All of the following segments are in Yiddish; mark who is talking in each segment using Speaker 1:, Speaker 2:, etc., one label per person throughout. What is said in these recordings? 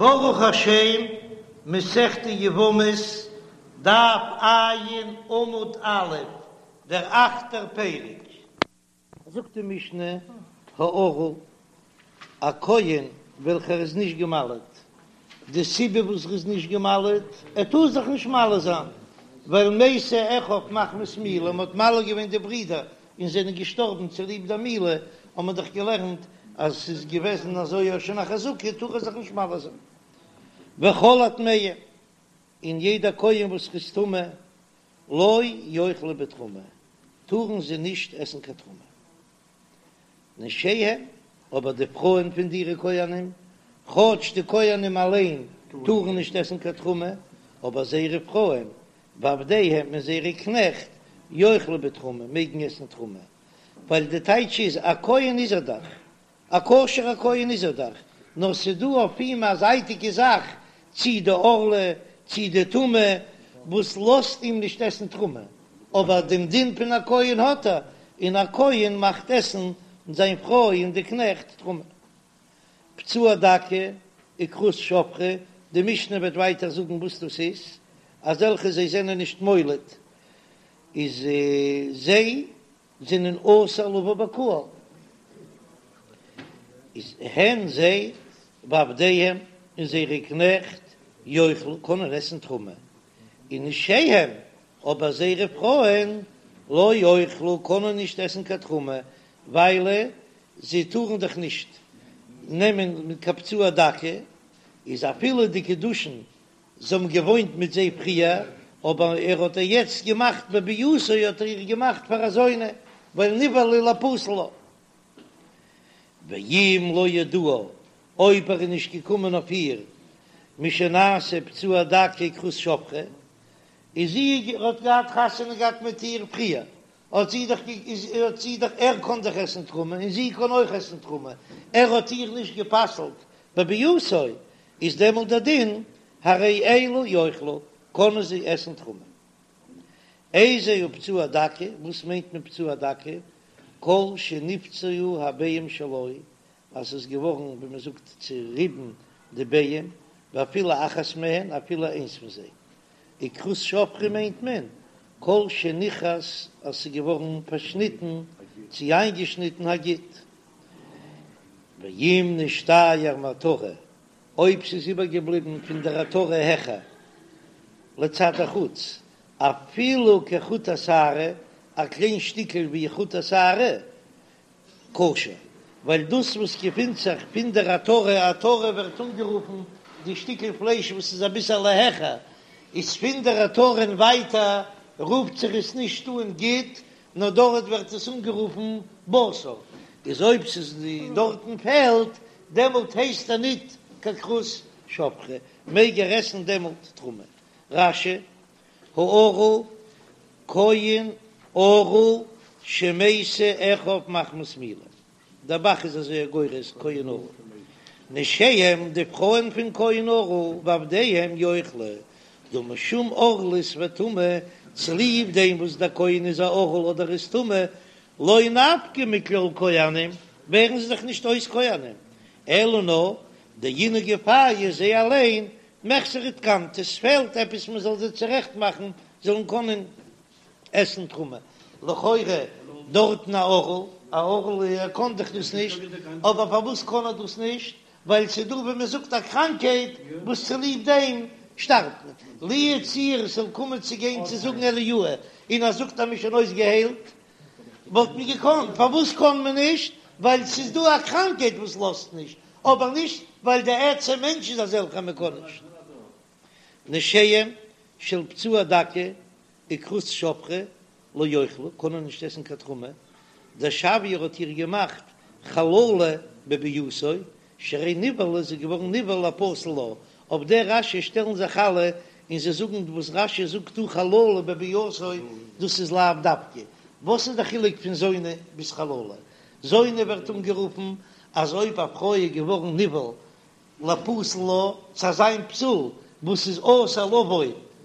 Speaker 1: ברוך השם, מסכת יבמות, דף ע' עמוד א', דער אכטער פרק. זאגט די משנה, הערל, א כהן וועלכער איז נישט געמל'עט, די סיבה וואס ער איז נישט געמל'עט, ער טאר זיך נישט מל זיין, ווייל מתו אחיו מחמת מילה, מען האט מל געווען די ברידער און זענען געשטארבן צוליב דער מילה, האט מען דאך געלערנט אז ס'איז געוועזן אזוי שוין א חזקה, טאר ער זיך נישט מל זיין. וכל הטמאים, און יעדער כהן וואס איז טמא, לא יאכלו בתרומה, טארן זיי נישט עסן קיין תרומה. נשיהם, אבער די פרויען פון די כהנים, כאטש די כהנים אליין טארן נישט עסן קיין תרומה, אבער זייערע פרויען, ועבדיהם און זייערע קנעכט, יאכלו בתרומה, מעגן עסן תרומה, ווייל די טייטש איז, א כהן איז ער דאך, א כשר'ער כהן איז ער דאך, נאר ס'דא אויף אים א זייטיגע זאך, צי די ערלה, צי די טומאה, וואס לאזט אים נישט עסן תרומה, אבער דעם דין פון א כהן האט ער, און א כהן מאכט עסן זיין פרוי און די קנעכט תרומה. פצוע דכא וכרות שפכה, די משנה וועט ווייטער זאגן וואס דאס איז, אזעלכע זיי זענען נישט מולד, איז זיי זענען אסור לבוא בקהל, איז הן זיי ועבדיהם און זייערע קנעכט יאכלו קענען עסן תרומה, און נשיהם אבער זייערע פרויען לא יאכלו קענען נישט עסן קיין תרומה, ווייל זיי טארן דאך נישט נעמען מיט קיין פצוע דכא, איז אפילו די קידושין זיי האבן געוואוינט מיט זיי פריער, אבער ער האט איר יעצט געמאכט בביאתו האט ער איר געמאכט פאר א זונה, ווייל נבעלה לפסול לה. ואם לא ידעה, אויב ער איז נישט געקומען אויף איר משנעשה פצוע דכא וכרות שפכה, איז זי ער האט געהאט חתונה געהאט מיט איר פריער, האט זי דאך האט זי דאך ער קען דאך עסן תרומה און זי קען אויך עסן תרומה, ער האט איר נישט גע'פסל'ט בביאתו, איז דעמאלט דער דין הרי אלו יאכלו, קענען זיי עסן תרומה. איזהו פצוע דכא, וואס מיינט מען פצוע דכא? כל שנפצעו הביעים שלו, אז ס'איז געווארן ווי מען זאגט צוריבן די ביעים, ואפילו אחת מהן, אפילו איינס פון זיי. וכרות שפכה מיינט מען כל שנכרת אז ס'איז געווארן פארשניטן צי איינגעשניטן הגיד. ואם נשתייר מעטרה, אויב ס'איז איבערגעבליבן פון דער עטרה העכער לצד החוץ, אפילו כחוט השערה, א קליין שטיקל ווי חוט השערה, כשר, ווייל דאס וואס געפינט זיך פון דער עטרה, עטרה ווערט אנגערופן די שטיקל פלייש וואס איז אביסעלע העכער, איז פון דער עטרה און ווייטער רופט זיך עס נישט אן גיד, נאר דארט ווערט עס אנגערופן בשר, איז אויב ס'איז דארטן פעלט, דעמאלט הייסט ער ניט קיין כרות שפכה, מעג ער עסן דעמאלט תרומה. רש"י, הערל, כהן ערל שמתו אחיו מחמת מילה, דער ב"ח איז אזוי גורס כהן ערל, נשיהם די פרויען פון כהן ערל ועבדיהם יאכלו, דהא משום ערלות וטומאה, צוליב דעם וואס דער כהן איז א ערל אדער איז טמא, לא נפקי מכלל כהנים, ווערן זיי דאך נישט אויס כהנים, אלא נאר דאינהו גופייהו זיי אליין מחוסרי תקנתא, עס פעלט עפעס מען זאל זיי צורעכט מאכן זאלן קענען עסן תרומה, לכאורה דארטן א ערל, א ערל ער קען דאך דאס נישט, אבער פארוואס קען ער דאס נישט? ווייל ס'איז דא ווי מען זאגט א קראנקהייט וואס צוליב דעם שטארבט מען, לו יצוייר עס זאל קומען צו גיין צו זאגן אליהו און ער זאגט אז מ'איז שוין אויסגעהיילט, וואלט מען געקאנט, פארוואס קען מען נישט? ווייל ס'איז דא א קראנקהייט וואס לאזט נישט, אבער נישט ווייל די עצם מענטש איז אזעלכע מען קען נישט. נשיהם של פצוע דכא וכרות שפכה לא יאכלו, קענען נישט עסן קיין תרומה, דשויה ער האט איר געמאכט חללה בביאתו, שהרי נבעלה איז געווארן נבעל לפסול לה, אויף דער רש"י שטעלן זיך אלע און זיי זאגן וואס רש"י זאגט דא חללה בביאתו דאס איז לאו דווקא, וואס איז די חילוק פון זונה ביז חללה? זונה ווערט אנגערופן אז אויב א פרוי איז געווארן נבעל לפסול לה צו אזא פסול וואס איז אסור לבוא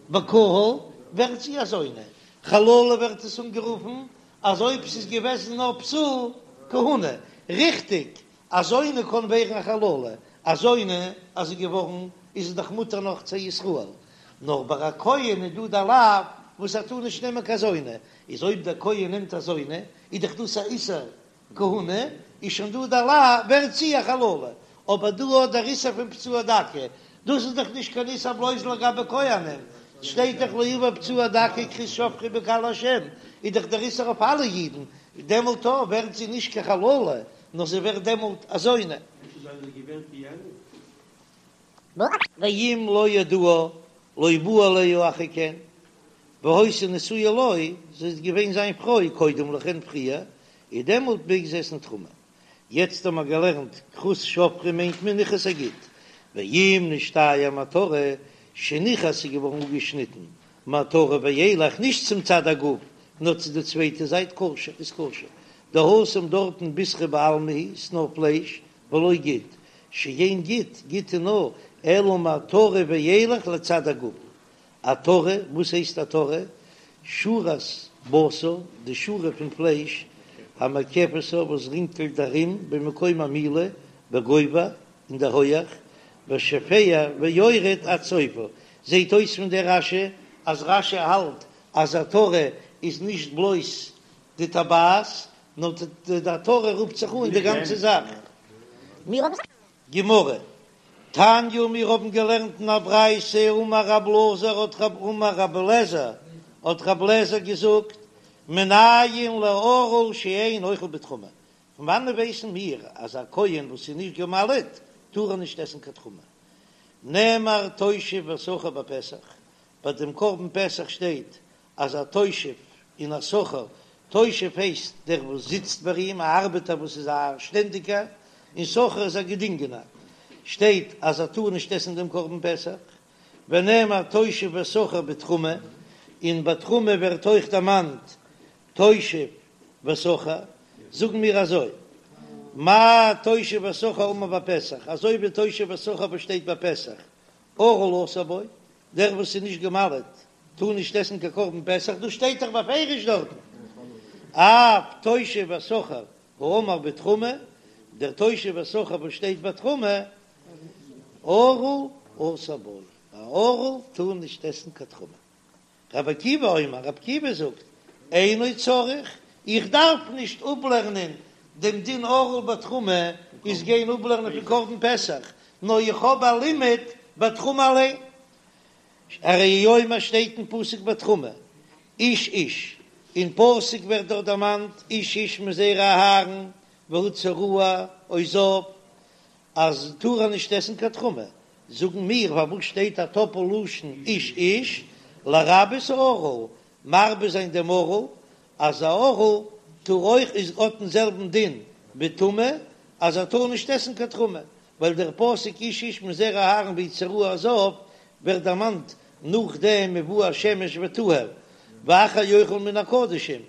Speaker 1: בקהל ווערט זי א זונה, חללה ווערט עס אנגערופן אז אויב ס'איז געוועזן נאר פסול כהונה, ריכטיג א זונה קען ווערן א חללה. א זונה אז זי געווארן איז עס דאך מותר נאך צו ישראל, נאר ביי א כהן איז דא דער לאו וואס ער טאר נישט נעמען קיין זונה, איז אויב דער כהן נעמט א זונה איז דאך דאס א איסור כהונה, איז שוין דא דער לאו ווערט זי א חללה, אבער דא האט דער איסור פון פצוע דכא, דאס איז דאך נישט קיין איסור בלויז לגבי כהנים, שטייט דאך לא יבא פצוע דכא כרות שפכה בקהל השם, איז דאך דער איסור אויף אלע אידן, דעמאלט ווערט זי נישט קיין חללה, נאר זי ווערט דעמאלט א זונה. ואם לא ידעה לא בא עליה אחר כן, והיתה נשואה לו, זי איז געווען זיין פרוי קודם לכן פריער, איז דעמאלט מעג זי עסן תרומה. יעצט האבן מיר געלערנט כרות שפכה מיינט מען ניכרת הגיד, ואם נשתייר מעטרה שניכרת איז געווארן אפגעשניטן מעטרה ואילך נישט צום צד הגוף נאר צו די צווייטע זייט כשר איז כשר, דהתם דארטן בישרא בעלמא הוא ס'נאר פלייש ולא גיד, שאין גיד, גיד איז נאר אלא מעטרה ואילך לצד הגוף. עטרה, וואס הייסט עטרה? שורת בשר, די שורה פון פלייש, המקפתה וואס רינגלט ארום במקום המילה בגובה אין דער הויעך, ושופע ויורד עד סופה. זעט אויס פון דער רש"י אז רש"י האלט אז עטרה איז נישט בלויז די טבעת, נאר די עטרה רופט זיך אן די גאנצע זאך. גמרא, תניא מיר האבן געלערנט אין א ברייתא אמר רב אלעזר האט רב אמר רב אלעזר האט רב אלעזר געזאגט מנין לערל שאין אוכל בתרומה, פון וואנען ווייסן מיר אז א כהן וואס איז נישט גע'מל'ט טאר ער נישט עסן קיין תרומה? נאמר תושב ושכיר בפסח, ביי דעם קרבן פסח שטייט אז א תושב און א שכיר, תושב הייסט דער וואס זיצט ביי אים, א ארבעטער וואס איז א שטענדיגער, און שכיר איז א געדינגענער, שטייט אז ער טאר נישט עסן דעם קרבן פסח, ונאמר תושב ושכיר בתרומה, און ביי תרומה ווערט אויך דערמאנט תושב ושכיר, זאגן מיר אזוי, מה תושב ושכיר האמור בפסח, אזוי ווי תושב ושכיר וואס שטייט ביי פסח, ערל אסור בו, דער וואס איז נישט גע'מל'ט טאר נישט עסן קיין קרבן פסח, דאס שטייט דאך בפירוש דארטן, אף תושב ושכיר האמור בתרומה, דער תושב ושכיר וואס שטייט ביי תרומה, ערל אסור בו, א ערל טאר נישט עסן קיין תרומה. רבי עקיבא אומר, רבי עקיבא זאגט, אינו צריך, איך דארף נישט אפלערנען דעם דין ערל בתרומה איז גיין אפלערנען פון קרבן פסח, נאר איך האב א לימוד בתרומה אליין. הרי הוא אומר שטייט אין פסוק בתרומה, איש איש, אין פסוק ווערט דארט דערמאנט איש איש מזרע אהרן והוא צרוע או זב, אז טאר ער נישט עסן קיין תרומה, זאגן מיר פארוואס שטייט א טאפל לשון איש איש, לרבות הערל, מרבה זיין דעם ערל, אז א ערל טאר אויך איז האט דעם זעלבן דין בטומאה אז ער טאר נישט עסן קיין תרומה, ווייל דער פסוק איש איש מזרע אהרן והוא צרוע או זב ווערט דערמאנט נאכדעם ובא השמש וטהר ואחר יאכל מן הקדשים,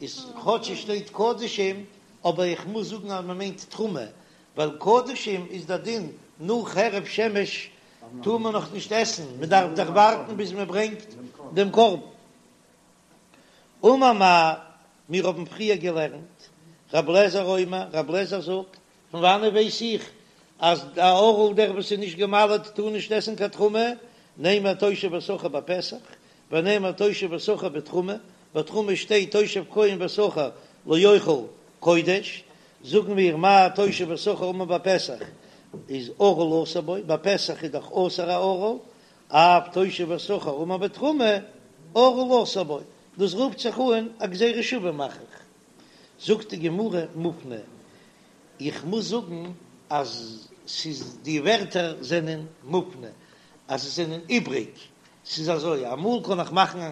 Speaker 1: איז כאטש עס שטייט קדשים אבער איך מוז זאגן אז מען מיינט תרומה, ווייל קדשים איז דער דין נאך הערב שמש טאר מען נאך נישט עסן, מען דארף דאך ווארטן ביז מען ברענגט דעם קרבן. אמר מר, מיר האבן פריער געלערנט, רב לעזער אומר, רב לעזער זאגט, פון וואנעט ווייס איך אז א ערל דער וואס איז נישט גע'מל'ט טאר נישט עסן קיין תרומה, נאמר תושב ושכיר בפסח, ונאמר תושב ושכיר בתרומה, בתרומה שטייט תושב כהן ושכיר לא יאכל קודש, זאגן מיר מה תושב ושכיר האמור בפסח איז ערל אסור בו, ביי פסח איז דאך אסור א ערל, אף תושב ושכיר האמור בתרומה ערל אסור בו, דאס רופט זיך אן א גזירה שווה מאך איך. זאגט די גמרא מופנה, איך מוז זאגן אז ס'איז די ווערטער זענען מופנה, אז זיי זענען איבריג, ס'איז אזוי, אמאל קען איך מאכן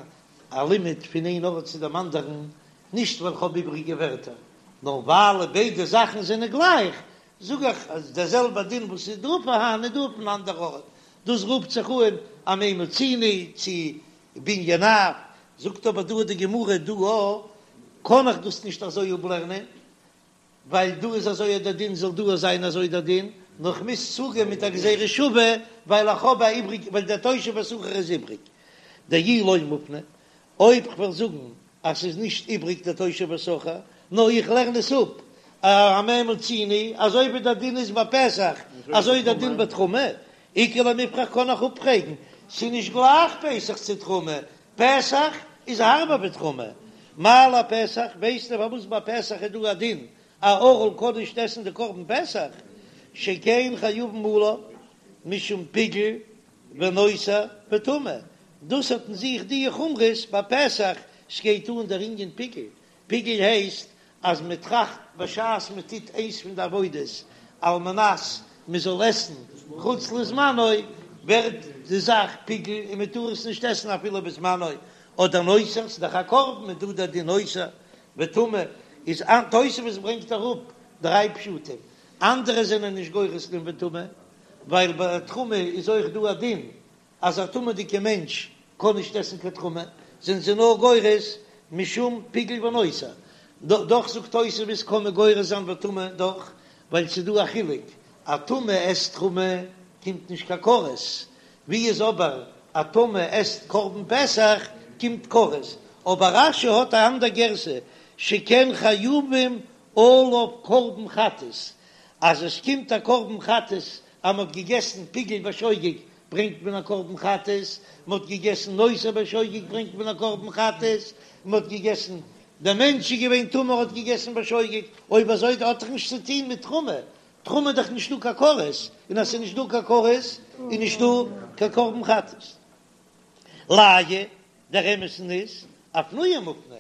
Speaker 1: א לימוד פון איין ארט צו דעם אנדערן, נישט ווייל כ'האב איבריגע ווערטער, נאר ווייל ביידע זאכן זענען גלייך, זאג איך אז דער זעלבער דין וואס איז דא פארהאן איז דא אויפן אנדער ארט, דאס רופט זיך אן א מה מצינו צו בנין אב, זאגט אבער דא די גמרא דא א קען איך דאס נישט אזוי אפלערנען, ווייל דא איז אזוי דער דין זאל דא זיין אזוי דער דין, נאר כ'מוז צוגיין מיט א גזירה שווה ווייל איך האב א איבריג ווייל דער תושב ושכיר איז איבריג, דאי לא מופנה, אויב כ'וועל זאגן אז ס'איז נישט איבריג דער תושב ושכיר, נאר איך לערן עס אפ. במה מצינו, אזוי ווי דער דין איז ביי פסח אזוי איז דער דין ביי תרומה, איכא למיפרך קען איך אפפרעגן, ס'איז נישט גלייך פסח צו תרומה, פסח איז הארבער ווי תרומה, מה לפסח, ווייסטו פארוואס ביי פסח איז דא א דין א ערל קען נישט עסן די קרבן פסח, שכן חייבין עליו משום פיגול ונותר וטומאה, דאס האט אין זיך די חומרות ביי פסח, ס'גייט אן דער ענין פיגול, פיגול הייסט אז מען טראכט בשעת מען טוט איינס פון די עבודות על מנת מען זאל עסן חוץ לזמנו, ווערט די זאך פיגול און מען טאר עס נישט עסן אפילו בזמנו, אדער נותר, ס'איז דאך א קרבן איז דא דער דין נותר וטמא, איז תוספות ברענגט אראפ דריי פשטים, אנדערע זענען נישט גורס דעם וטמא, ווייל ביי תרומה איז אויך דא א דין אז א טמא'דיגע מענטש קען נישט עסן קיין תרומה, זענען זיי נאר גורס משום פיגול ונותר. דאך זאגט תוספות קען מען גורס זיין וטמא דאך, ווייל ס'איז דא א חילוק, א טמא עסט תרומה קומט נישט קיין כרת, ווי איז אבער א טמא עסט קרבן פסח קומט כרת, אבער רש"י האט א אנדער גירסא שכן חייבים עליו קרבן חטאת, אז עס קומט א קרבן חטאת אז מ'האט געגעסן פיגול בשוגג ברענגט מען א קרבן חטאת, מען האט געגעסן נותר בשוגג ברענגט מען א קרבן חטאת, מען האט געגעסן, דער מענטש איז געווען טמא האט געגעסן בשוגג, אויב אזוי האט דאך נישט צו טון מיט תרומה, תרומה איז דאך נישטא קיין כרת, און אז ס'איז נישט דא קיין כרת איז נישטא קיין קרבן חטאת. לאיי, דער אמת'ן איז, אפנויי מופנה,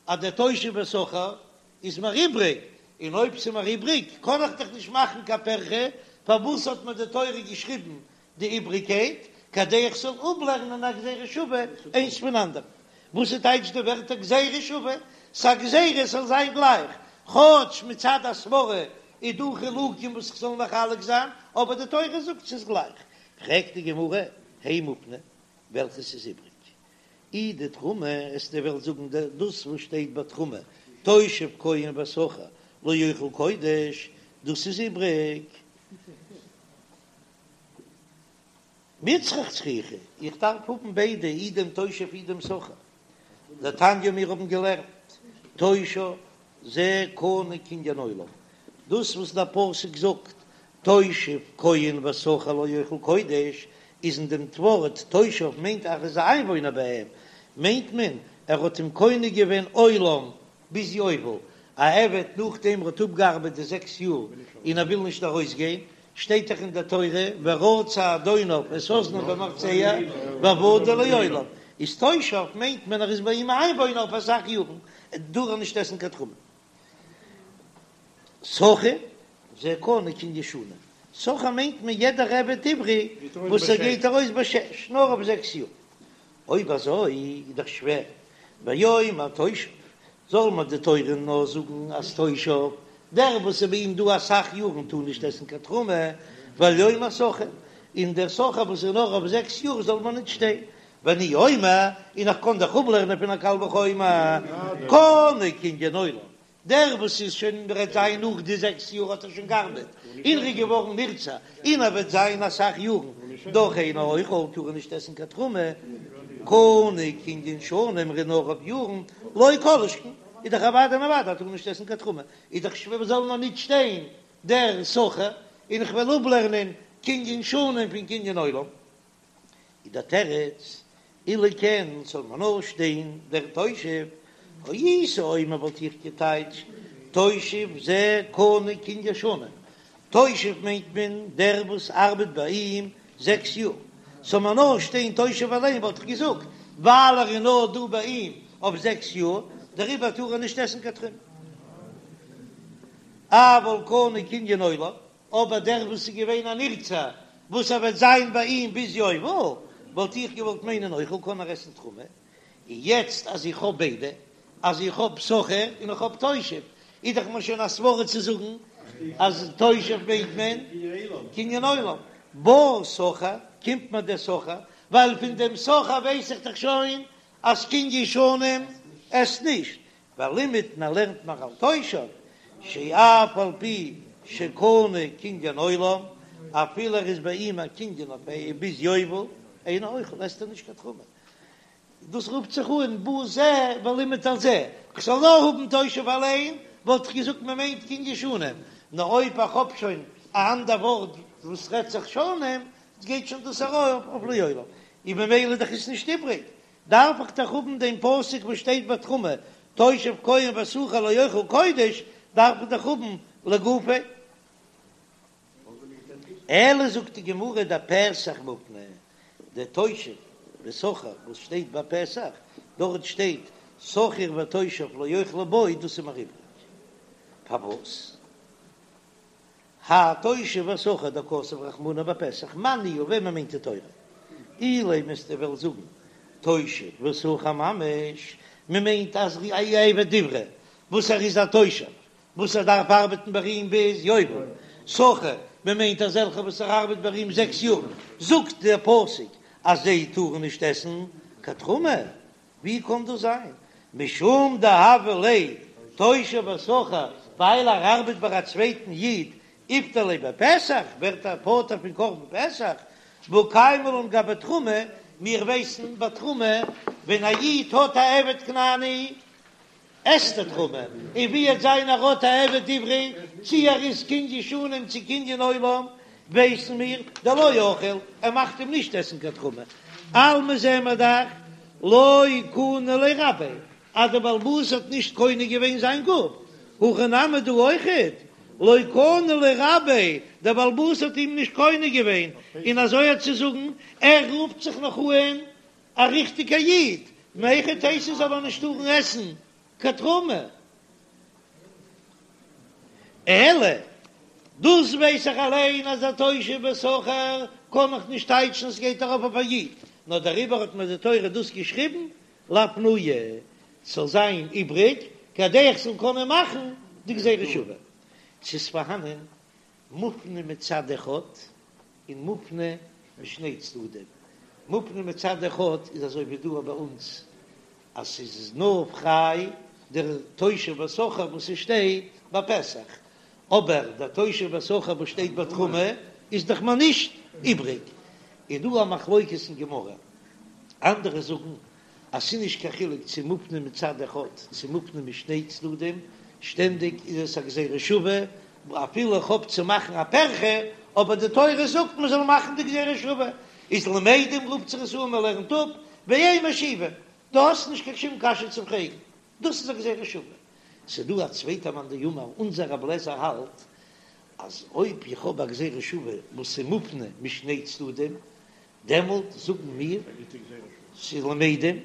Speaker 1: אז דער תושב ושכיר איז מיר איבריג, און אויב ס'איז מיר איבריג קען איך דאך נישט מאכן קיין פירכא, פארוואס האט מיר די תורה געשריבן די איבריגקייט, כדי איך זאל אפלערנען א גזירה שווה איינס פון אנדערן? וואס איז טייטש די ווערטער גזירה שווה? ס'א גזירה עס זאל זיין גלייך, כאטש מצד הסברה איז דא חילוקים וואס איך זאל מחלק זיין, אבער די תורה זאגט ס'איז גלייך. פרעגט די גמרא, הי מופנה, וועלכעס איז איבריג? אי דתרומה, וועסטו וועלן זאגן דאס וואס שטייט ביי תרומה, תושב כהן ושכיר לא יאכל קודש, דאס איז איבריג. מיצרך צריכי, איך דארף האבן ביידע, אי דעם תושב אי דעם שכיר. דתניא מיר האבן געלערנט, תושב זה קנוי קנין עולם, דאס וואס דער פסוק זאגט תושב כהן ושכיר לא יאכל קודש, איז אין דעם ווארט תושב מיינט אז ער איז א איינוואוינער ביי אים, מיינט מען ער האט אים קונה געווען עולם ביז יובל, א עבד נאכדעם ער האט אפגעארבעט די זעקס יאר און ער וויל נישט ארויסגיין, שטייט דאך אין דער תורה ורצע אדוניו את אזנו במרצע ועבדו לעולם, איז תושב מיינט מען ער איז ביי אים א איינוואוינער אויף אסאך יארן, טאר ער נישט עסן קיין תרומה. שכיר זה קנוי קנין שנים, שכיר מיינט מען יעדער עבד עברי וואס ער גייט ארויס בשש, נאר אויף זעקס יאר. אויב אזוי איז דאך שווער, ויאמר תושב, זאל מיר די תורה נאר זאגן אז תושב, דער וואס איז ביי אים דא אסאך יארן טאר נישט עסן קיין תרומה, ואל יאמר שכיר, און דער שכיר וואס איז נאר אויף זעקס יאר זאל מיר נישט שטיין, ואני אומר, און איך קען דאך אפלערנען פון א קל וחומר, קנוי קנין עולם, דער וואס איז שוין וועט זיין נאך די זעקס יאר האט ער שוין געארבעט און ער איז געווארן נרצע און ער וועט זיין אסאך יארן דאך אינו אוכל טאר ער נישט עסן קיין תרומה, קנוי קנין שנים ער איז נאר אויף יארן לא כל שכן איז דאך אוודאי און אוודאי טאר ער נישט עסן קיין תרומה איז דאך שווער זאל נאר נישט שטיין דער שכיר און איך וועל אפלערנען קנין שנים פון קנין עולם. איז דער תירוץ, אילו כן זאל מען נאר שטיין דער תושב, הייתי אומר וואלט איך געטייטשט תושב זה קנוי קנין שנים, תושב מיינט מען דער וואס ארבעט ביי אים זעקס יאר, זאל מען נאר שטיין תושב אליין וואלט איך געזאגט ווייל ער איז נאר דא ביי אים אויף זעקס יאר דעריבער טאר ער נישט עסן קיין תרומה. אבל קנוי קנין עולם, אבער דער וואס איז געווען א נרצע וואס ער וועט זיין ביי אים ביז יובל, וואלט איך געוואלט מיינען אוכל קען ער עסן תרומה, און יעצט אז איך האב ביידע, אז איך האב שכיר און איך האב תושב, איז דאך מיר שוין א סברא צו זאגן אז תושב מיינט מען קנין עולם, בא שכיר, קומט מיר דער שכיר, ווייל פון דעם שכיר ווייס איך דאך שוין אז קנין שנים עסט נישט, ולימד און ער לערנט מיר על תושב שאף על פי שקנוי קנין עולם, אפילו ער איז ביי אים א קנין אויף ביז יובל, אינו אוכל עסט ער נישט קיין תרומה. דאס רופט זיך אן בא זה ולימד על זה, כ'זאל נאר האבן תושב אליין, וואלט איך געזאגט מען מיינט קנין שנים, נאר אויב איך האב שוין א אנדער ווארט וואס רעדט זיך שנים, גייט שוין דאס ארויף אויף לעולם, און ממילא דאך איז נישט איבריג, דארף איך דאך האבן דעם פסוק וואס שטייט ביי תרומה, תושב כהן ושכיר לא יאכל קודש, דארף איך דאך האבן לגופיה. אלא זאגט די גמרא דפסח מופנה, דער תושב ושכיר וואס שטייט ביי פסח, דארט שטייט שכיר ותושב לא יאכלו בו, דאס איז מיר איבריג. פארוואס? האי תושב ושכיר דכתב רחמנא בפסח, מאן ניהו, וועמען מיינט די תורה? אילימא וועסטו וועלן זאגן תושב ושכיר ממש, מען מיינט אז א עבד עברי וואס ער איז א תושב וואס ער דארף ארבעטן ביי אים ביז יובל, שכיר, מען מיינט אזעלכע וואס ער ארבעט ביי אים זעקס יאר, זאגט דער פסוק אז זיי טארן נישט עסן קיין תרומה, ווי קען דאס זיין? משום דהוה ליה תושב ושכיר, ווייל ער ארבעט ביי א צווייטן איד, איפטר ליה בפסח, ווערט ער פטור פון קרבן פסח, והא קיימא לן גבי תרומה, מיר ווייסן ביי תרומה ווען א איד האט א עבד כנעני, עסט ער תרומה, און ווי עט זיין ער האט א עבד עברי, צי ער איז קנין שנים צי קנין עולם, ווייסן מיר, דלא אכיל, ער מאכט אים נישט עסן קיין תרומה. אלמא זעען מיר דאך, לא קני ליה רביה, אז דער בעל הבית האט נישט קונה געווען זיין גוף, הכא נמי דא אויכעט, לא קני ליה רביה, דער בעל הבית האט אים נישט קונה געווען, און אזוי האט צו זאגן, ער רופט זיך נאך אן א ריכטיגע איד, מהיכי תיתי זאל ער נישט טארן עסן קיין תרומה. אלא, דאס ווייס איך אליין אז א תושב ושכיר קען איך נישט טייטשן עס גייט ארויף אויף א איד, נאר דעריבער האט מיר די תורה דאס געשריבן לאפנויי, ס'זאל זיין איבריג כדי איך זאל קענען מאכן די גזירה שווה. ס'איז פארהאנען מופנה מצד אחד און מופנה משני צדדים. מופנה מצד אחד איז אזוי ווי דא ביי אונז אז ס'איז נאר פריי דער תושב ושכיר וואס ס'שטייט ביי פסח, אבער דער תושב ושכיר וואס שטייט ביי תרומה איז דאך מיר נישט איבריג. איז דא א מחלוקת אין גמרא, אנדערע זאגן אז ס'איז נישט קיין חילוק צו מופנה מצד אחד צו מופנה משני צדדים, שטענדיג איז עס א גזירה שווה, אפילו איך האב צו מאכן א פירכא, אבער די תורה זאגט מען זאל מאכן די גזירה שווה, איז למדים רופט זיך עס אן מען לערנט אפ, ואין משיבים, דו האסט נישט קיין שום קשיא צו פרעגן, דאס איז א גזירה שווה. ס'איז דא א צווייטע מאן דאמר, אונזער רב לעזער האלט אז אויב איך האב א גזירה שווה וואס איז מופנה משני צדדים, דעמאלט זאגן מיר ס'איז למדים,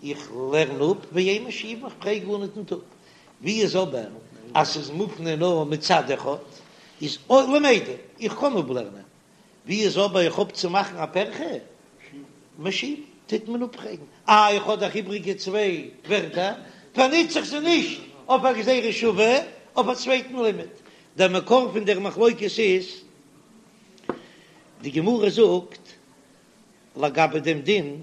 Speaker 1: איך לערן אפ ואין משיבין, איך פרעג גארניט ניט אפ. ווי איז אבער אז ס'איז מופנה נאר מצד אחד, איז אויך למדים, איך קען אפלערנען. ווי איז אבער איך האב צו מאכן א פירכא, משיבין, טוט מען אפפרעגן. אה, איך האב דאך איבריגע צוויי ווערטער, פארנוץ איך זיי נישט אויף א גזירה שווה, אויף א צווייטן לימוד. דער מקור פון דער מחלוקת איז. די גמרא זאגט לגבי דעם דין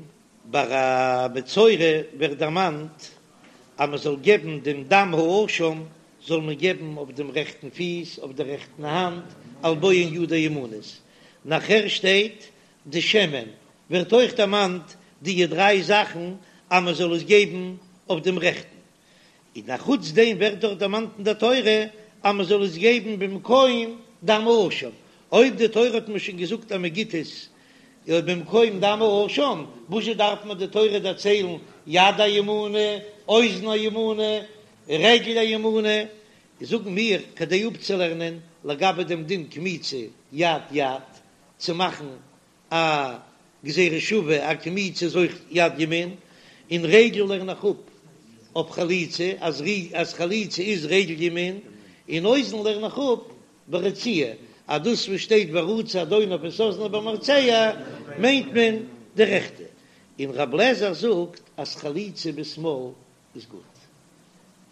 Speaker 1: ביי א מצורע ווערט דערמאנט אז מען זאל געבן דעם דם האשם זאל מען געבן אויף דעם רעכטן פיס אויף דער רעכטן האנט על בוהן ידו הימנית, נאכער שטייט די שמן ווערט אויך דערמאנט די דריי זאכן אז מען זאל עס געבן אויף דעם רעכטן און א חוץ דעם ווערט דאך דערמאנט אין דער תורה אז מען זאל עס געבן במקום דם האשם, אויב די תורה האט מיר שוין געזאגט אז מען גיט עס במקום דם האשם, וואזשע דארף מיר די תורה דערציילן יד הימנית, אוזן הימנית, רגל הימנית, זאגן מיר כדי אפצולערנען לגבי דעם דין קמיצה יד יד צו מאכן א גזירה שווה א קמיצה איז אויך יד ימין, און רגל לערן איך אפ אויף חליצה אז אז חליצה איז רגל ימין, און אוזן לערן איך אפ ברציעה אז דאס וואס שטייט ורצע אדוניו את אזנו במרצע מיינט מען די רעכטע, און רב לעזער זאגט אז חליצה בשמאל איז גוט.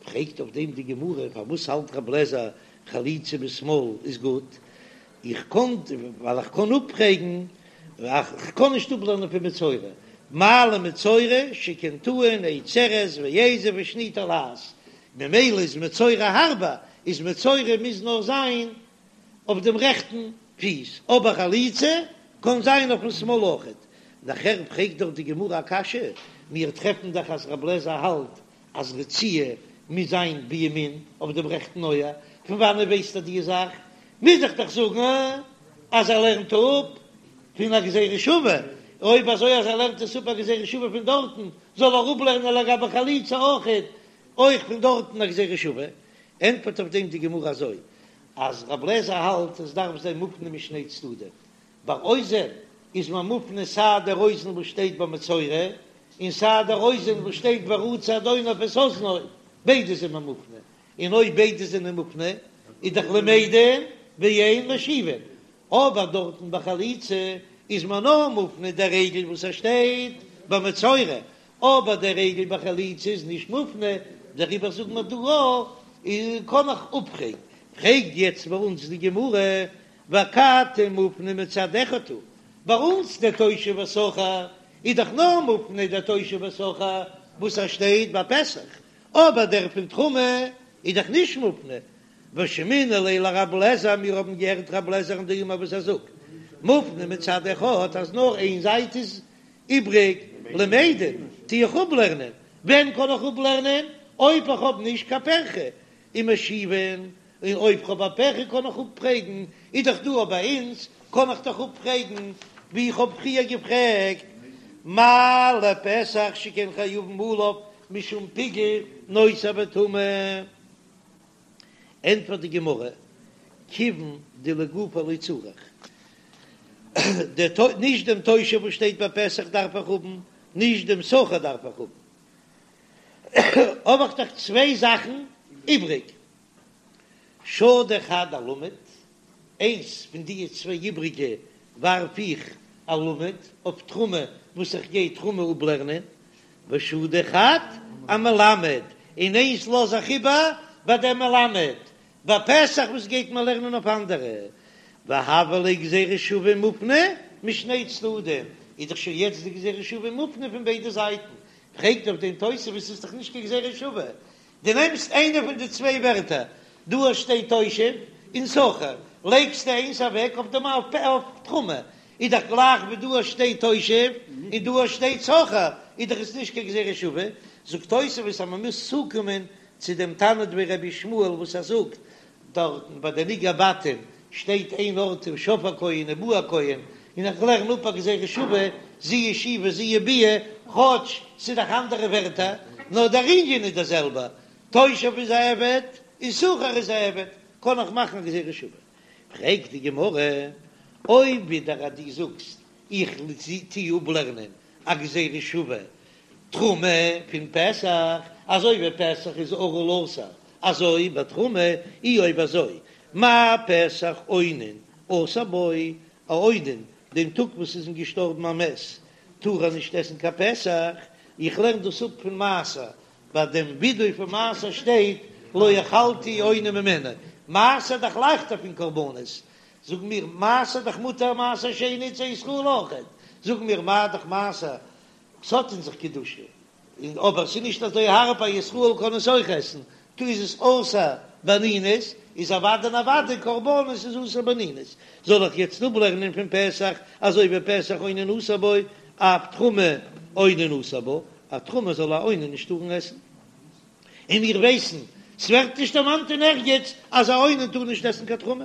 Speaker 1: פרעגט אויף דעם די גמרא, פארוואס האלט רב לעזער חליצה בשמאל איז גוט? איך קען, ווייל איך קען אפפרעגן, איך קען נישט אפלערנען פון מצורע, מה למצורע שכן טעון עץ ארז ואזוב ושני תולעת, ממילא איז מצורע הארבער, איז מצורע מוז נאר זיין אויף דעם רעכטן פיס, אבער חליצה קען זיין אויפן שמאל אויכעט. נאכער פרעגט דאך די גמרא א קשיא, מיר טרעפן דאך אז רב לעזער האלט אז רציעה. מוז זיין בימין אויף דעם רעכטן אויער, פון וואנעט ווייסט ער די זאך? מוז איך דאך זאגן אז ער לערנט אפ פון א גזירה שווה, אויב אזוי אז ער לערנט עס אפ א גזירה שווה פון דארטן, זאל ער אפלערנען לגבי חליצה אויכעט אויך פון דארטן א גזירה שווה. ענטפערט אויף דעם די גמרא אזוי, אז רב לעזער האלט עס דארף זיין מופנה משני צדדים, ביי אוזן איז מען מופנה סיי דער אוזן וואס שטייט ביי מצורע, און סיי דער אוזן וואס שטייט ורצע אדוניו את אזנו, ביידע זענען מופנה, און אויב ביידע זענען מופנה איז דאך למדין ואין משיבין, אבער דארטן ביי חליצה איז מען נאר מופנה דער רגל וואס ער שטייט ביי מצורע, אבער דער רגל ביי חליצה איז נישט מופנה, דעריבער זאגן מיר דא א, קען איך אפפרעגן, פרעגט יעצט ביי אונז די גמרא, ואכתי מופנה מצד אחד הוא, ביי אונז דער תושב ושכיר איז דאך נאר מופנה דער תושב ושכיר וואס ער שטייט ביי פסח, אבער דער פון תרומה איז דאך נישט מופנה, ושמעינן ליה לרב לעזער, מיר האבן געהערט רב לעזער'ן דאמר וואס ער זאגט, מופנה מצד אחד אז נאר איין זייט איז איבריג, למדין, טו איך אפלערנען, ווען קען איך אפלערנען? אויב איך האב נישט קיין פירכא, ומשיבין, און אויב כ'האב א פירכא קען איך אפפרעגן, איז דאך דא ביי אונז, קען איך דאך אפפרעגן ווי איך האב פריער געפרעגט, מה לפסח שכן חייבין עליו משום פיגול נותר וטמא. ענטפערט די גמרא, כיוון דלגופיה לא צריך, נישט דעם תושב וואס שטייט ביי פסח דארף איך האבן, נישט דעם שכיר דארף איך האבן, האב איך דאך צוויי זאכן איבריג, שדי חד אלמד, איינס פון די צוויי איבריגע ווארף איך אלמד אויף תרומה וואס איך גיי תרומה אפלערנען, ושדי חד אמלמד, און איינס לאז איך איבער ביי דעם מלמד, ביי פסח וואס גייט מען לערנען אויף אנדערע, והויא ליה גזירה שווה מופנה משני צדדים, איז דאך שוין יעצט די גזירה שווה מופנה פון ביידע זייטן, פרעגט אויף דעם תוספות איז דאך נישט קיין גזירה שווה, דו נעמסט איינע פון די צוויי ווערטער, דא שטייט תושב און שכיר, לייגסטו איינס אוועק אויף דעם אויף תרומה, איז דאך גלייך ווי דא שטייט תושב און דא שטייט שכיר, איז דאך עס נישט קיין גזירה שווה, זאגט תוספות אז מען מוז צוקומען צו דעם תנא דבי רבי ישמעאל וואס ער זאגט דארטן ביי די נגעי בתים שטייט איין ארט ושב הכהן ובא הכהן, און איך לערן אפ א גזירה שווה, זו ישיבה זו ביאה, כאטש ס'איז דאך אנדערע ווערטער, נאר דער ענין איז דער זעלבער, תושב איז א עבד און שכיר איז א עבד, קען איך מאכן א גזירה שווה. פרעגט די גמרא, אויב ווידער אז דו זאגסט איך טו אפלערנען א גזירה שווה תרומה פון פסח, אזוי ווי פסח איז ערל אסור, אזוי ביי תרומה, אי אויב אזוי, מה פסח אונן אסור בו, א אונן דעם טאג וואס איז אים געשטארבן א מת טאר ער נישט עסן קיין פסח, איך לערן דאס אפ פון מעשר, ביי דעם ווידוי פון מעשר שטייט לא אכלתי אונן ממנו, מעשר דאך לייכטער פון קרבנות, זאג מיר מעשר דאך מותר מעשר שני צו ישראל אויכעט, זאג מיר מה דאך מעשר ס'האט אין זיך קדושה, און אבער ס'איז נישט אזוי הארב א ישראל קען עס אויך עסן, טא איז עס אסור באנינות, איז אוודאי און אוודאי קרבנות איז אסור באנינות, זאל איך יעצט אפלערנען פון פסח אזוי ווי פסח אונן אסור בו, אף תרומה אונן אסור בה, אז תרומה זאל א אונן נישט טארן עסן. און מיר ווייסן, ס'ווערט נישט דערמאנט אין ערגעץ אז א אונן טאר נישט עסן קיין תרומה.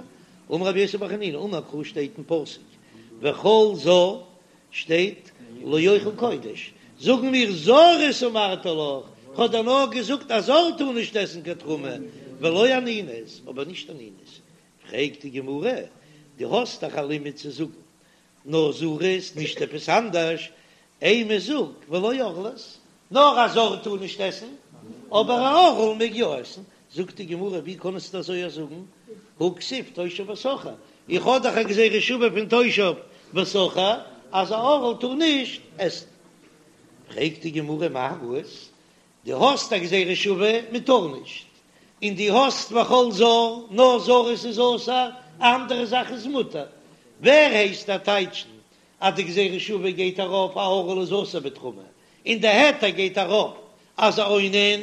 Speaker 1: אמר רבי יוסי בר חנינא, אמר קרא שטייט אין פסוק וכל זר שטייט לא יאכל קודש, זאגן מיר זרות אמרתי לך, כ'האב דיר נאר געזאגט א זר טאר נישט עסן קיין תרומה, ולא אנינות, אבער נישט אנינות. פרעגט די גמרא, דו האסט דאך א לימוד צו זאגן נאר זרות, נישט עפעס אנדערש, אימא זאג ולא ערלות, נאר א זר טאר נישט עסן, אבער א ערל מעג יא עסן, זאגט די גמרא ווי קענסטו אזוי זאגן, הא כתיב תושב ושכיר, איך האב דאך א גזירה שווה פון תושב ושכיר אז א ערל טאר נישט עסן. פרעגט די גמרא מאי ראית, דו האסט א גזירה שווה מען טאר נישט, און דו האסט וכל זר, נאר זרות איז אסור, אנדערע זאך איז מותר, ווער הייסט דיר טייטשן אז די גזירה שווה גייט ארויף א ערל איז אסור בתרומה, און די היתר גייט ארויף אז א אונן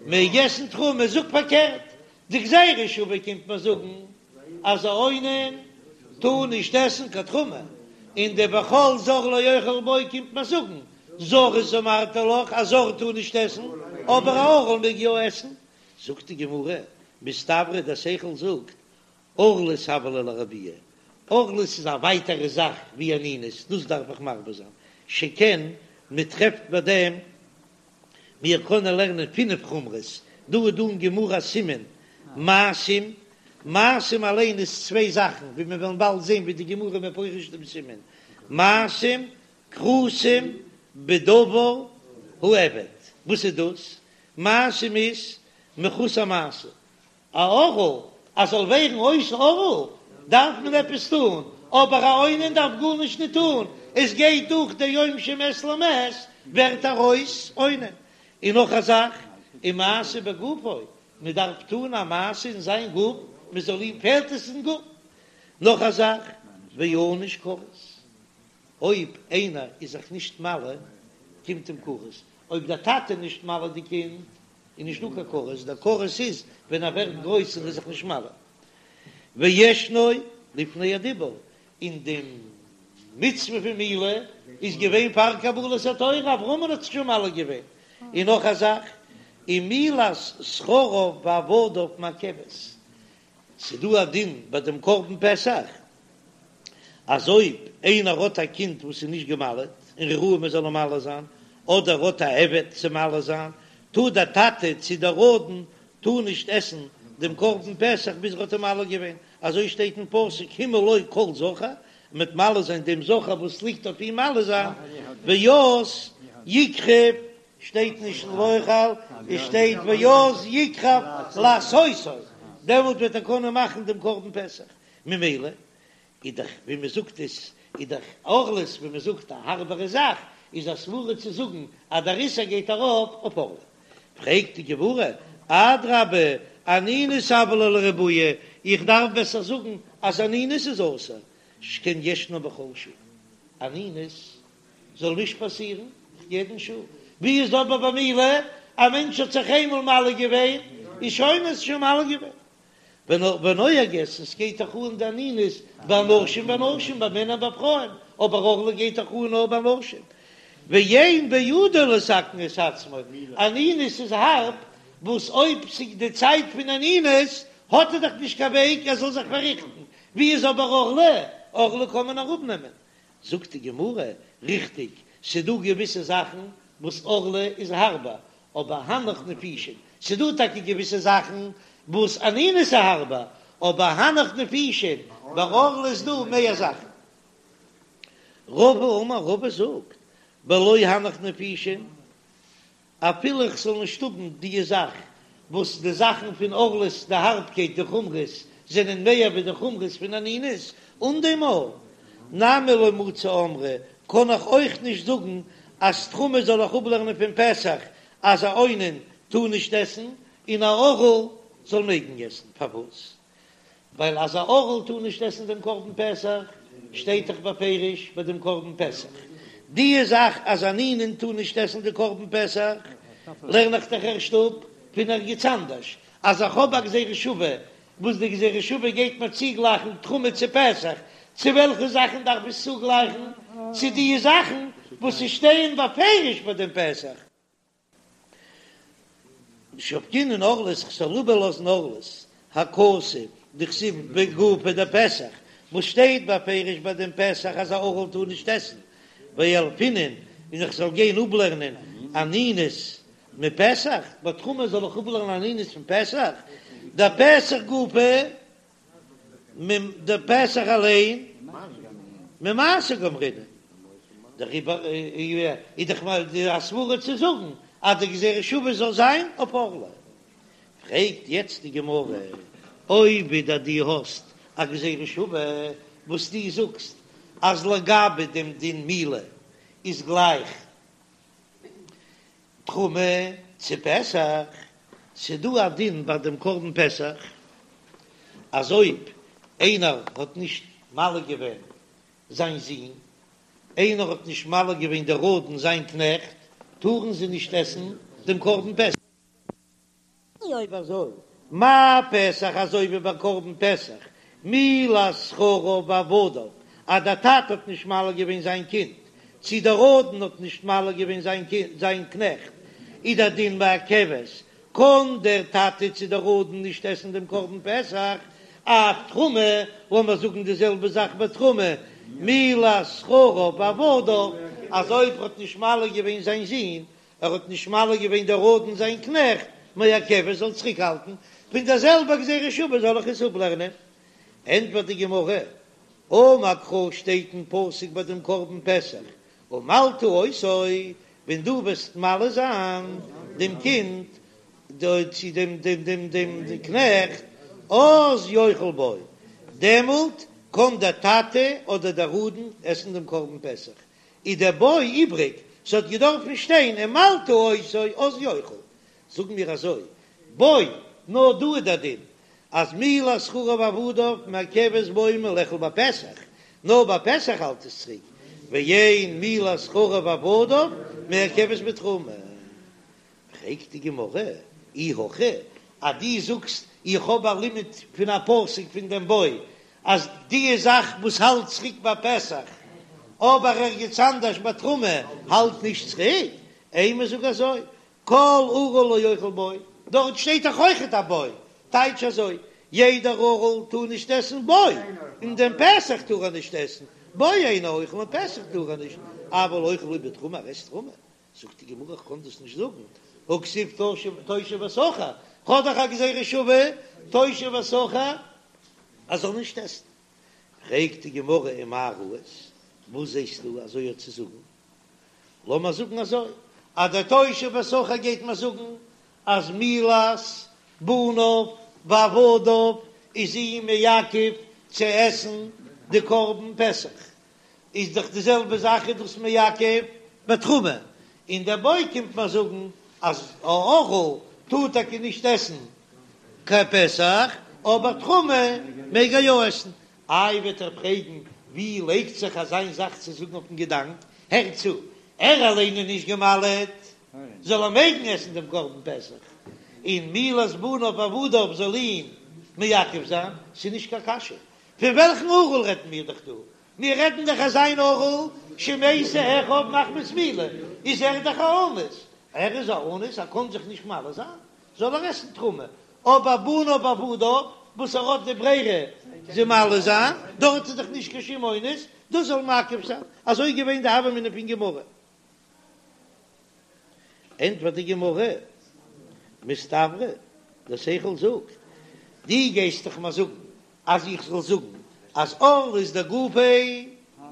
Speaker 1: מעג עסן תרומה, זאג פארקערט, די גזירה שווה קומט מיר זאגן אז א אונן טאר נישט עסן קיין תרומה, און די וכל זר לא יאכל בו קומט מיר זאגן זרות אמרתי לך א זר טאר נישט עסן. אבער א ערל מעג יא עסן. זאגט די גמרא, מסתברא דער שכל זאגט, ערלות הוה ליה לרבויי, ערלות איז א ווייטערע זאך ווי אנינות, דאס דארף איך מרבה זיין, שכן מען טרעפט ביי דעם, מיר קענען לערנען פינף חומרות, דא איז דא אין גמרא א סימן מעשים, מעשים אליין איז צוויי זאכן, ווי מיר וועלן באלד זען ווי די גמרא מפרש דעם סימן, מעשים כרותים בדבר האבד, וואס איז דאס? מעשים איז מחוסר מעשה, א ערל אז זאל ווערן אויס ערל דארף מען עפעס טון, אבער א אונן דארף גארנישט נישט טון, עס גייט דורך די יום שמת למת ווערט ער אויס אונן. און נאך א זאך, ומעשה בגופו, מען דארף טון א מעשה אין זיין גוף, מען זאל אים פעלט עס אין גוף. נאך א זאך, וענוש כרת, אויב איינער איז זיך נישט מל, קומט אים כרת, אויב דער טאטע איז נישט מל די קינד, איז נישט דא קיין כרת, דער כרת איז ווען ער ווערט גרויס און איז זיך נישט מל. וישנו לפני הדיבור, און די מצוה פון מילה איז געווען פאר קבלת התורה, אברהמ'ן האט זיך שוין מל געווען. און נאך א זאך, ומילת זכריו ועבדיו מעכבת, ס'דא א דין ביי דעם קרבן פסח, אז אויב איינער האט א קינד וואס איז נישט גע'מל'ט און ראוי מען זאל אים מל זיין, אדער האט א עבד צו מל זיין, טאר דער טאטע צו דער אדון טאר נישט עסן דעם קרבן פסח ביז ער האט אים מל געווען, אזוי שטייט אין פסוק המול לו כל זכר, מ'וועט מל זיין דעם זכר וואס ליגט אויף אים מל זיין, ואז יקרב שטייט נישט לאכול, עס שטייט ואז יקרב לעשותו, דעמאלט וועט ער קענען מאכן דעם קרבן פסח, ממילא איז דאך ווי מען זאגט עס איז דאך ערלות ווי מען זאגט א הארבערע זאך, איז א סברא צו זאגן אז דער איסור גייט ארויף אויף ערלה. פרעגט די גמרא, אדרבה אנינות הוה ליה לרבויי, איך דארף בעסער זאגן אז אנינות איז אסור, שכן ישנה בכל שעה, אנינות זאל נישט פאסירן יעדן שעה, ווי איז אבער ביי מילה, א מענטש האט זיך איינמאל מל געווען, איז שוין איז שוין מל געווען. ונוהגת, עס גייט דאך אן די אנינות ביי אנשים ונשים, ביי מענער ביי פרויען, אבער ערלה גייט דאך אן נאר ביי נשים. ואין בידו לתקן את עצמו, אנינות איז הארב, וואס אויב ס'איז די צייט פון אנינות האט ער דאך נישט קיין וועג ער זאל זיך פארריכטן, ווי איז אבער ערלה, ערלה קען מען אראפנעמען. זאגט די גמרא, ריכטיג, ס'דא געוויסע זאכן וואס ערלה איז הארבער, אבער הנך נפישין, ס'דא טאקע געוויסע זאכן וואס אנינות איז הארבער, אבער הנך נפישין, ביי ערלה איז דא מער זאכן. רבא אמר, רבא זאגט, בלא הנך נפישין, אפילו איך זאל נישט האבן די זאך וואס די זאכן פון ערלות די הארבקייט די חומרות זענען מער ווי די חומרות פון אנינות, אן דעם אויך נמי לא מצי אמרי קען איך אויך נישט זאגן אז תרומה זאל איך אפלערנען פון פסח אז א אונן טאר נישט עסן און א ערל זאל מעגן עסן, פארוואס? ווייל אז א ערל טאר נישט עסן דעם קרבן פסח, שטייט דאך בפירוש ביי דעם קרבן פסח. די זאך אז אן אונן טאר נישט עסן די קרבן פסח, לערן איך דאך ערשט אפ פון ערגעץ אנדערש, אז איך האב א גזירה שווה, וואס די גזירה שווה גייט מיר צוגלייכן תרומה צו פסח, צו וועלכע זאכן דארף עס צוגלייכן? צו די זאכן וואס ס'שטייען בפירוש ביי דעם פסח. שבקינן ערלות כ'זאל איבערלאזן ערלות הכתוב דכתיב בגופיה דפסח וואס שטייט בפירוש ביי דעם פסח אז א ערל טאר נישט עסן וילפינן און איך זאל גיין אפלערנען אנינות מפסח ביי תרומה זאל איך אפלערנען אנינות פון פסח דפסח גופא דער פסח אליין ממעשר גמרינן, דעריבער איז דאך א סברא צו זאגן אז די גזירה שווה זאל זיין אויף ערלה. פרעגט יעצט די גמרא, אויב ווידער דו האסט א גזירה שווה וואס דו זאגסט אז לגבי דעם דין מילה איז גלייך תרומה צו פסח, ס'דא א דין ביי דעם קרבן פסח אז אויב איינער האט נישט מל געווען זיין זון, איינער האט נישט מל געווען דער אדון זיין קנעכט, טארן זיי נישט עסן דעם קרבן פסח. אויב אזוי, מה פסח אזוי ווי ביי קרבן פסח, מילת זכריו ועבדיו, אז דער טאטע האט נישט מל געווען זיין קינד, צי דער אדון האט נישט מל געווען זיין קינד, זיין קנעכט. איז דער דין מעכבת, קען דער טאטע צו דער אדון נישט עסן דעם קרבן פסח, אף תרומה, לאמיר זאגן די זעלבע זאך ביי תרומה, מילת זכריו ועבדיו, אז אויב ער האט נישט מל געווען זיין זון, ער האט נישט מל געווען דער אדון זיין קנעכט, מעכבת זאל צוריקהאלטן, פון דער זעלבער גזירה שווה זאל איך עס אפלערנען. ענטפערט די גמרא, אמר קרא שטייט אין פסוק ביי דעם קרבן פסח, ומלתה אותו, ווען דו וועסט מל זיין דעם קינד, צו דעם דעם דעם דעם קנעכט, אז יאכל בו, דעמאלט קען דער טאטע אדער דער אדון עסן דעם קרבן פסח, איז דער בו איבריג, ס'האט געדארפן שטיין ומלתה אותו אז יאכל, זאגן מיר אזוי, בו, נאר דא איז דער דין אז מילת זכריו ועבדיו מעכבת בו מלאכול בפסח, נאר ביי פסח האלט עס צוריק, ואין מילת זכריו ועבדיו מעכבת בתרומה. פרעגט די גמרא, אי הכי, אז דו זאגסט איך האב א לימוד פון א פסוק פון דעם בו אז די זאך וואס האלט צוריק ביי פסח אבער ערגעץ אנדערש ביי תרומה האלט נישט צוריק, אימא זאג אזוי, כל ערל לא יאכל בו, דארט שטייט דאך אויכעט א בו, טייטש אזוי, יעדער ערל טאר נישט עסן בו, און דעם פסח טאר ער נישט עסן, בו אינו אוכל און פסח טאר ער נישט, אבל אוכל הוא בתרומה, ער עסט תרומה, זאגט די גמרא איך קען דאס נישט זאגן, הכתיב תושב ושכיר, כ'האב דאך א גזירה שווה תושב ושכיר אז זאל נישט עסן, פרעגט די גמרא ומאי ראית, וואס זעסטו אזוי האט צו זאגן, לאמיר זאגן אזוי, אז דער תושב ושכיר גייט מיר זאגן אז מילת בניו ועבדיו איז אים מעכב צו עסן די קרבן פסח, איז דאך די זעלבע זאך איז דאס מעכב בתרומה, און דער בו קומט מיר זאגן אז א ערל טאר טאקע נישט עסן קיין פסח, אבער תרומה מעג ער יא עסן. איי וועט ער פרעגן ווי לייגט זיך אזיין זאך צו זאגן אויפן געדאנק, הער צו, ער אליין איז נישט גע'מל'עט, זאל ער מעגן עסן דעם קרבן פסח, און מילת בניו ועבדיו זאל אים מעכב זיין, ס'איז נישט קיין קשיא, פון וועלכן ערל רעדן מיר דאך דא? מיר רעדן דאך אזיין ערל שמתו אחיו מחמת מילה, איז ער דאך א אנוס, ער איז א אנוס ער קען זיך נישט מל זיין, זאל ער עסן תרומה, אבער בניו ועבדיו וואס ער האט די ברירה זיי מל זיין, דארט איז דאך נישט קיין שום אונס, דאס זאל מעכב זיין, אזוי איז געווען די הוה אמינא פון גמרא. ענטפערט די גמרא, מסתברא, דער שכל זאגט, דו גייסט דאך מיר זאגן אז איך זאל זאגן אז ערלות דגופיה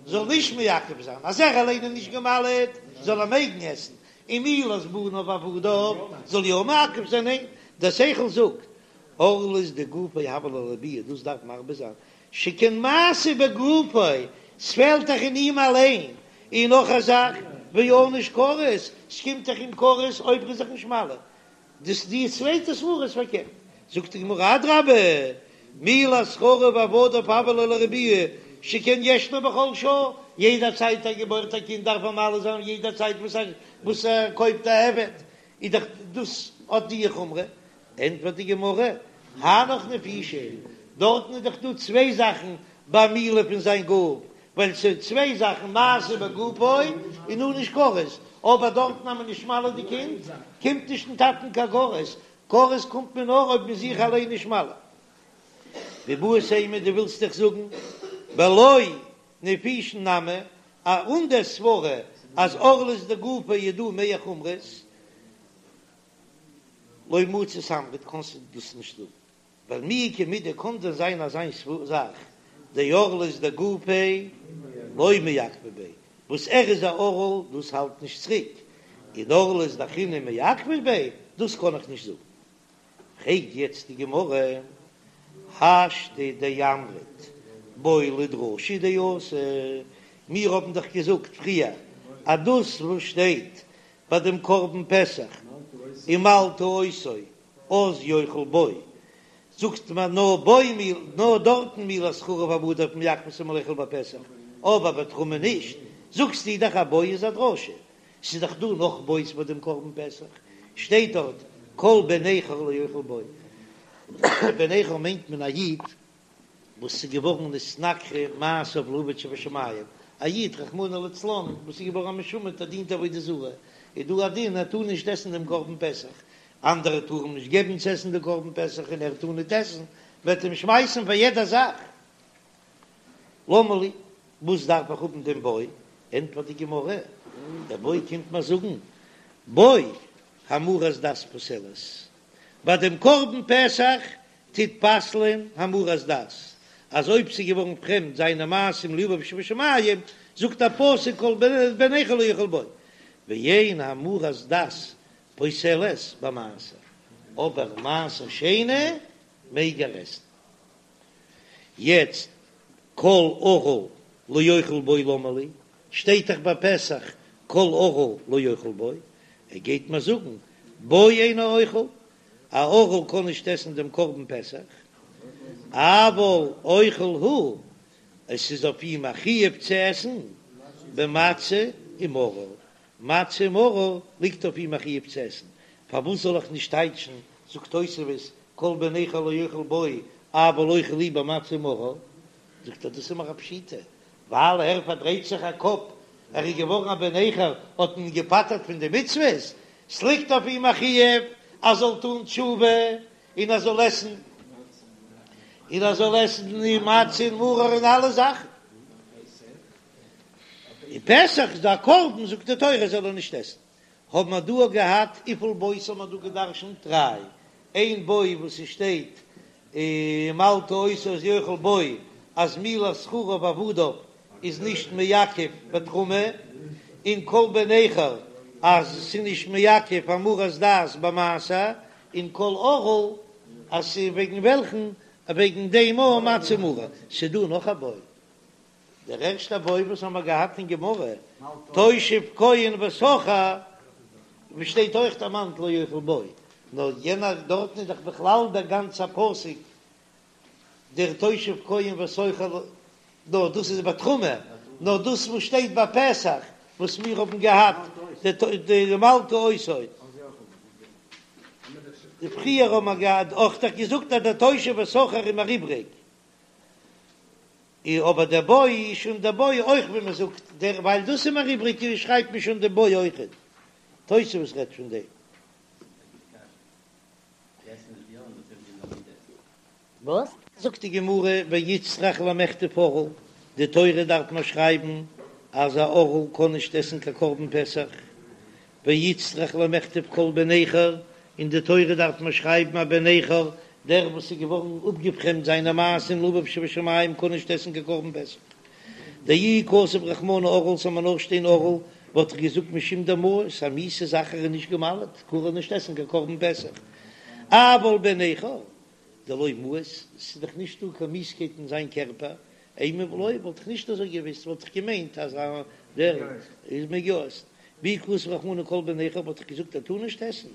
Speaker 1: זאל נישט מעכב זיין, אז ער אליין איז נישט גע'מל'עט זאל ער מעגן עסן, און מילת בניו ועבדיו זאל יא מעכב זיין, ניין, דער שכל זאגט, ערלות דגופיה הוה ליה לביאה, דאס דארף מרבה זיין, שכן מעשה בגופו, ס'פעלט דאך אין אים אליין, און נאך א זאך, וענוש כרת, ס'קומט דאך אים כרת אויב ער איז זיך נישט מל. דאס די צווייטע סברא איז פארקערט, זאגט די גמרא אדרבה, מילת זכריו ועבדיו הוה ליה לרבויי שכן ישנו בכל שעה, יעדע צייט ער געבוירט א קינד דארף ער מל זיין, יעדע צייט וואס ער וואס ער קויפט א עבד איז דאך דאס האט די חומרא, ענטפערט די גמרא, הנך נפישין, דארטן איז דאך דא צוויי זאכן ביי מילה פון זיין גוף, ווייל ס'איז צוויי זאכן מעשה בגופו און ענוש כרת, אבער דארטן אז מען נישט מל די קינד קומט נישט אין טאטן קיין כרת, כרת קומט מען נאר אויב מען זיך אליין נישט מל. ואיבעית אימא דו ווילסט דאך זאגן בלא נפישין נמי, אן דער סברא אז ערלות דגופיה איז דא מער חומרות, לא מצית אמרת קענסטו דאס נישט זאגן. ווייל מי איכא מידי קאן דען זיין אזיין זאך דערלות דגופיה לא מעכבא ביה, וואס ער איז א ערל דאס האלט נישט צוריק, און ערלות דאחרינא מעכבא ביה דאס קען איך נישט זאגן. פרעגט יעצט די גמרא, השתא דאמרת בו לדרשה דאתא, מיר האבן דאך געזאגט פריער אז דאס וואס שטייט ביי דעם קרבן פסח ומלתה אותו אז יאכל בו, זאגט מען נאר בו מיל נאר דארטן מילת זכריו ועבדיו מעכבת מלאכול בפסח, אבער בתרומה נישט, זאגסטו דאך אז בו איז א דרשה, ס'איז דאך דא נאך בו'ס ביי דעם קרבן פסח, שטייט דארט כל בן נכר לא יאכל בו, בן נכר מיינט מען א איד וואס איז געווארן נתנכרו מעשיו לאביו שבשמים. א איד רחמנא לצלן וואס איז געווארן א משומד ער דינט עבודה זרה, איז דא א דין ער טאר נישט עסן דעם קרבן פסח, אנדערע טארן אים נישט געבן צו עסן די קרבן פסח און ער טאר ניט עסן, מ'וועט אים שמייסן פאר יעדע זאך. למה לי, וואס דארף איך האבן דעם בו? ענטפערט די גמרא, דער בו קומט מיר זאגן, בו המרת דת פוסלת, ביי דעם קרבן פסח טוט פסל'ען המרת דת, אז אויב ס'איז געווארן פרעמד זיינע מעשים לאביו שבשמים, זאגט א פסוק כל בן נכר לא יאכל בו, ואין המרת דת פוסלת במעשר, אבער מעשר שני מעג ער עסן. יעצט כל ערל לא יאכל בו למה לי, שטייט דאך ביי פסח כל ערל לא יאכל בו, ער גייט מיר זאגן בו אינו אוכל, א ערל קען נישט עסן דעם קרבן פסח, אבל אוכל הוא, עס איז אויף אים א חיוב צו עסן במצה ומרור, מצה ומרור ליגט אויף אים א חיוב צו עסן, פארוואס זאל איך נישט טייטשן, זאגט תוספות, כל בן נכר לא יאכל בו, אבל אוכל הוא במצה ומרור, זאגט ער דאס איז מיר א פשיטא, ווייל ער פארדרייט זיך א קאפ, ער איז געווארן א בן נכר, האט מען אים געפטר'ט פון די מצוות, ס'ליגט אויף אים א חיוב ער זאל טון תשובה און ער זאל עסן, און ער זאל עסן די מצה און מרור און אלע זאכן. און פסח איז דא א קרבן זאגט די תורה זאל ער נישט עסן. האבן מיר דא געהאט וויפיל בו'ס האבן מיר דא געדרשנט? דריי. איין בו וואס ס'שטייט ומלתה אותו אז יאכל בו אז מילת זכריו ועבדיו איז נישט מעכב בתרומה, און כל בן נכר אז ס'איז נישט מעכב המרת דת במעשר, און כל ערל אז ס'איז וועגן וועלכן וועגן דעם א מצה ומרור. ס'דא נאך א בו. דער ערשטער בו וואס האמער געהאט אין גמרא, תושב כהן ושכיר, וואו שטייט אויך דערמאנט לא יאכל בו, נאר יענער דארטן איז דאך בכלל דער גאנצער פסוק דער תושב כהן ושכיר, נאר דאס איז בתרומה, נאר דאס וואס שטייט ביי פסח וואס מיר האבן געהאט די ומלתה אותו. די פריער האבן מיר געהאט אויך דאך געזאגט אז דער תושב ושכיר איז מיר איבריג. און אבער דער בו איז שוין דער בו אויך ווי מען זאגט דער ווייל דאס איז מיר איבריג שרייבט מען שוין דער בו אויכעט. תוספות רעדט פון דעם.
Speaker 2: וואס?
Speaker 1: זאגט די גמרא ואיצטריך למכתב ערל, די תורה דארף מען שרייבן אז א ערל קען נישט עסן קיין קרבן פסח, ואיצטריך למכתב כל בן נכר, אין די תורה דארף מען שרייבן א בן נכר, דער וואס איז געווארן אפגעפרעמדט זיינע מעשים לאביו שבשמים קען נישט עסן קיין קרבן פסח. דאי כתב רחמנא ערל זאל מען נאר שטיין ערל, וואלט איך געזאגט משום דמאיס, א מיאוסע זאך ער איז נישט גע'מל'ט, טאר ער נישט עסן קיין קרבן פסח. אבל בן נכר, דלא מאיס, ס'איז דאך נישט דא קיין מיאוסקייט אין זיין קערפער, אימא לא, וואלט איך נישט אזוי געוויסט, וואלט איך געמיינט אז דער איז מעג יא עסן. ואי כתב רחמנא כל בן נכר וואלט איך געזאגט ער טאר נישט עסן,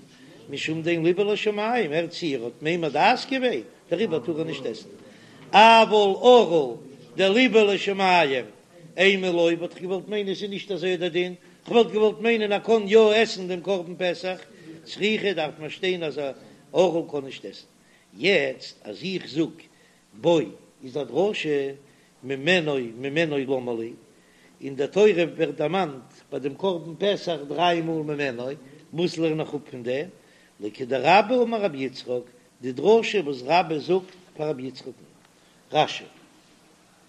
Speaker 1: משום דאין ליבו לשמים, הערט צו ער האט ממיר דת געווען, דעריבער טאר ער נישט עסן. אבל ערל דליבו לשמים, אימא לא, וואלט איך געוואלט מיינען ס'איז נישט אזוי דער דין, כ'וואלט געוואלט מיינען ער קען יא עסן דעם קרבן פסח, צריכא דארף מען שטיין אז א ערל קען נישט עסן. יעצט אז איך זאג בו איז א דרשה ממנו ממנו למה לי, אין דער תורה ווערט דערמאנט ביי דעם קרבן פסח דריי מאל ממנו, וואס לערן איך אפ פון דעם? לכדרבה אמר רבי יצחק, די דרשה וואס רבה זאגט פאר רבי יצחק'ן. רש"י.